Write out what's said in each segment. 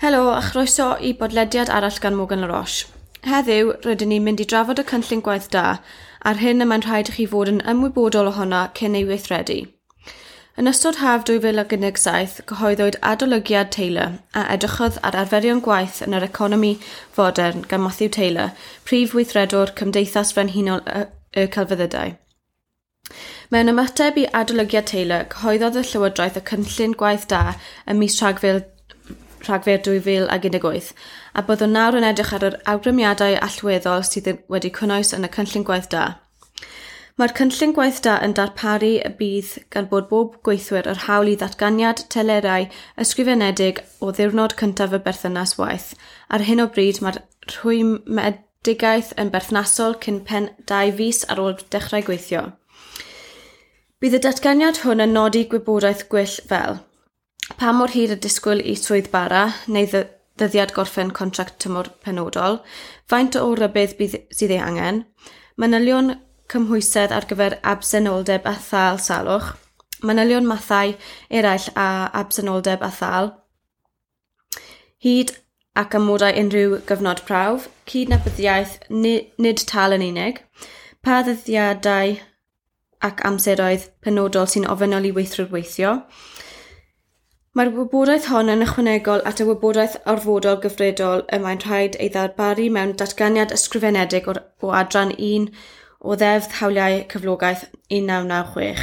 Helo a chroeso i bodlediad arall gan Morgan Laroche. Heddiw, rydyn ni'n mynd i drafod y cynllun gwaith da a'r hyn y mae'n rhaid i chi fod yn ymwybodol ohono cyn ei weithredu. Yn ystod haf 2017, cyhoeddwyd adolygiad Taylor a edrychodd ar arferion gwaith yn yr economi fodern gan Matthew Taylor, prif weithredwr Cymdeithas Frenhinol y, y Celfyddydau. Mewn ymateb i adolygiad Taylor, cyhoeddodd y Llywodraeth y cynllun gwaith da ym mis Rhagfyr Rhagfyr 2018, a byddwn nawr yn edrych ar yr awgrymiadau allweddol sydd wedi cynnwys yn y cynllun gwaith da. Mae'r cynllun gwaith da yn darparu y bydd gan bod bob gweithwyr yr hawl i ddatganiad telerau ysgrifenedig o ddiwrnod cyntaf y berthynas waith. Ar hyn o bryd mae'r rhwymedigaeth yn berthnasol cyn pen 2 fis ar ôl dechrau gweithio. Bydd y datganiad hwn yn nodi gwybodaeth gwyll fel pa mor hir y disgwyl i swydd bara neu ddyddiad gorffen contract tymor penodol, faint o rybudd bydd, sydd ei angen, manylion cymhwysedd ar gyfer absenoldeb a thâl salwch, manylion mathau eraill a absenoldeb a thâl, hyd ac amodau unrhyw gyfnod prawf, cydnabyddiaeth nid tâl yn unig, pa ddyddiadau ac amseroedd penodol sy'n ofynnol i weithwyr weithio. Mae'r wybodaeth hon yn ychwanegol at y wybodaeth orfodol gyfredol y mae'n rhaid ei ddarparu mewn datganiad ysgrifenedig o, o adran 1 o Ddeddf Hawliau Cyflogaeth 1996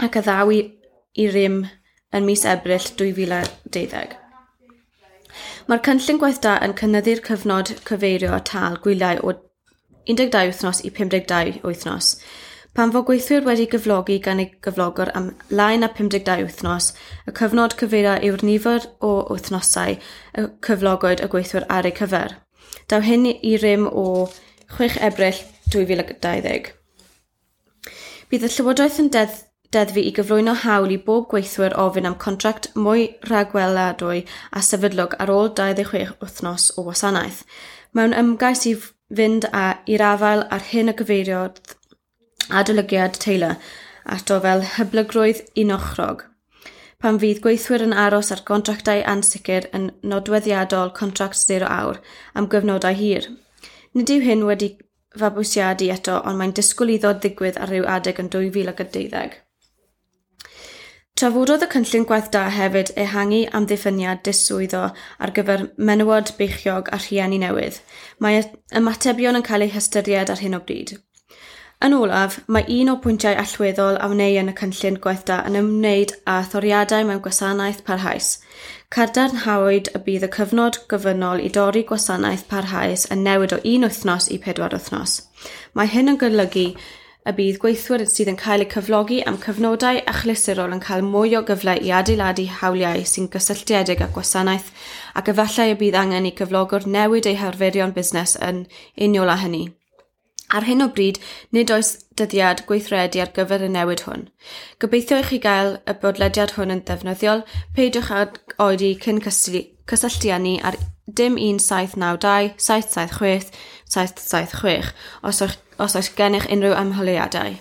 ac a ddaw i, i rym yn mis Ebrill 2012. Mae'r cynllun gwaith da yn cynyddu'r cyfnod cyfeirio tâl gwyliau o 12 wythnos i 52 wythnos. Pan fo gweithwyr wedi gyflogi gan ei gyflogwr am lai na 52 wythnos, y cyfnod cyfeirio yw'r nifer o wythnosau y cyflogwyd y gweithwyr ar eu cyfer. Daw hyn i rym o 6 Ebrill 2020. Bydd y Llywodraeth yn deddf deddfu i gyflwyno hawl i bob gweithwyr ofyn am contract mwy rhagweladwy a sefydlog ar ôl 26 wythnos o wasanaeth. Mewn ymgais i fynd â i'r afael ar hyn y gyfeiriodd adolygiad Taylor ato fel hyblygrwydd unochrog. Pan fydd gweithwyr yn aros ar gontractau ansicr yn nodweddiadol contract zero awr am gyfnodau hir. Nid yw hyn wedi fabwysiadu eto, ond mae'n disgwyl iddo ddigwydd ar ryw adeg yn 2012. Trafododd y cynllun gwaith da hefyd ehangu amddiffyniad diswyddo ar gyfer menywod beichiog a rhieni newydd. Mae ymatebion yn cael eu hystyried ar hyn o bryd. Yn olaf, mae un o'r pwyntiau allweddol a wneir yn y cynllun gwaith da yn ymwneud â thoriadau mewn gwasanaeth parhaus. Cadarnhawyd y bydd y cyfnod gofynnol i dorri gwasanaeth parhaus yn newid o un wythnos i 4 wythnos. Mae hyn yn golygu y bydd gweithwyr sydd yn cael eu cyflogi am cyfnodau achlysurol yn cael mwy o gyfle i adeiladu hawliau sy'n gysylltiedig â gwasanaeth ac efallai y bydd angen i cyflogwr newid eu harferion busnes yn uniol â hynny. Ar hyn o bryd, nid oes dyddiad gweithredu ar gyfer y newid hwn. Gobeithio i chi gael y bodlediad hwn yn ddefnyddiol. Peidiwch ag oedi cyn cysylltu â ni ar dim 1792 776 776 os oes, os oes gennych unrhyw ymholiadau.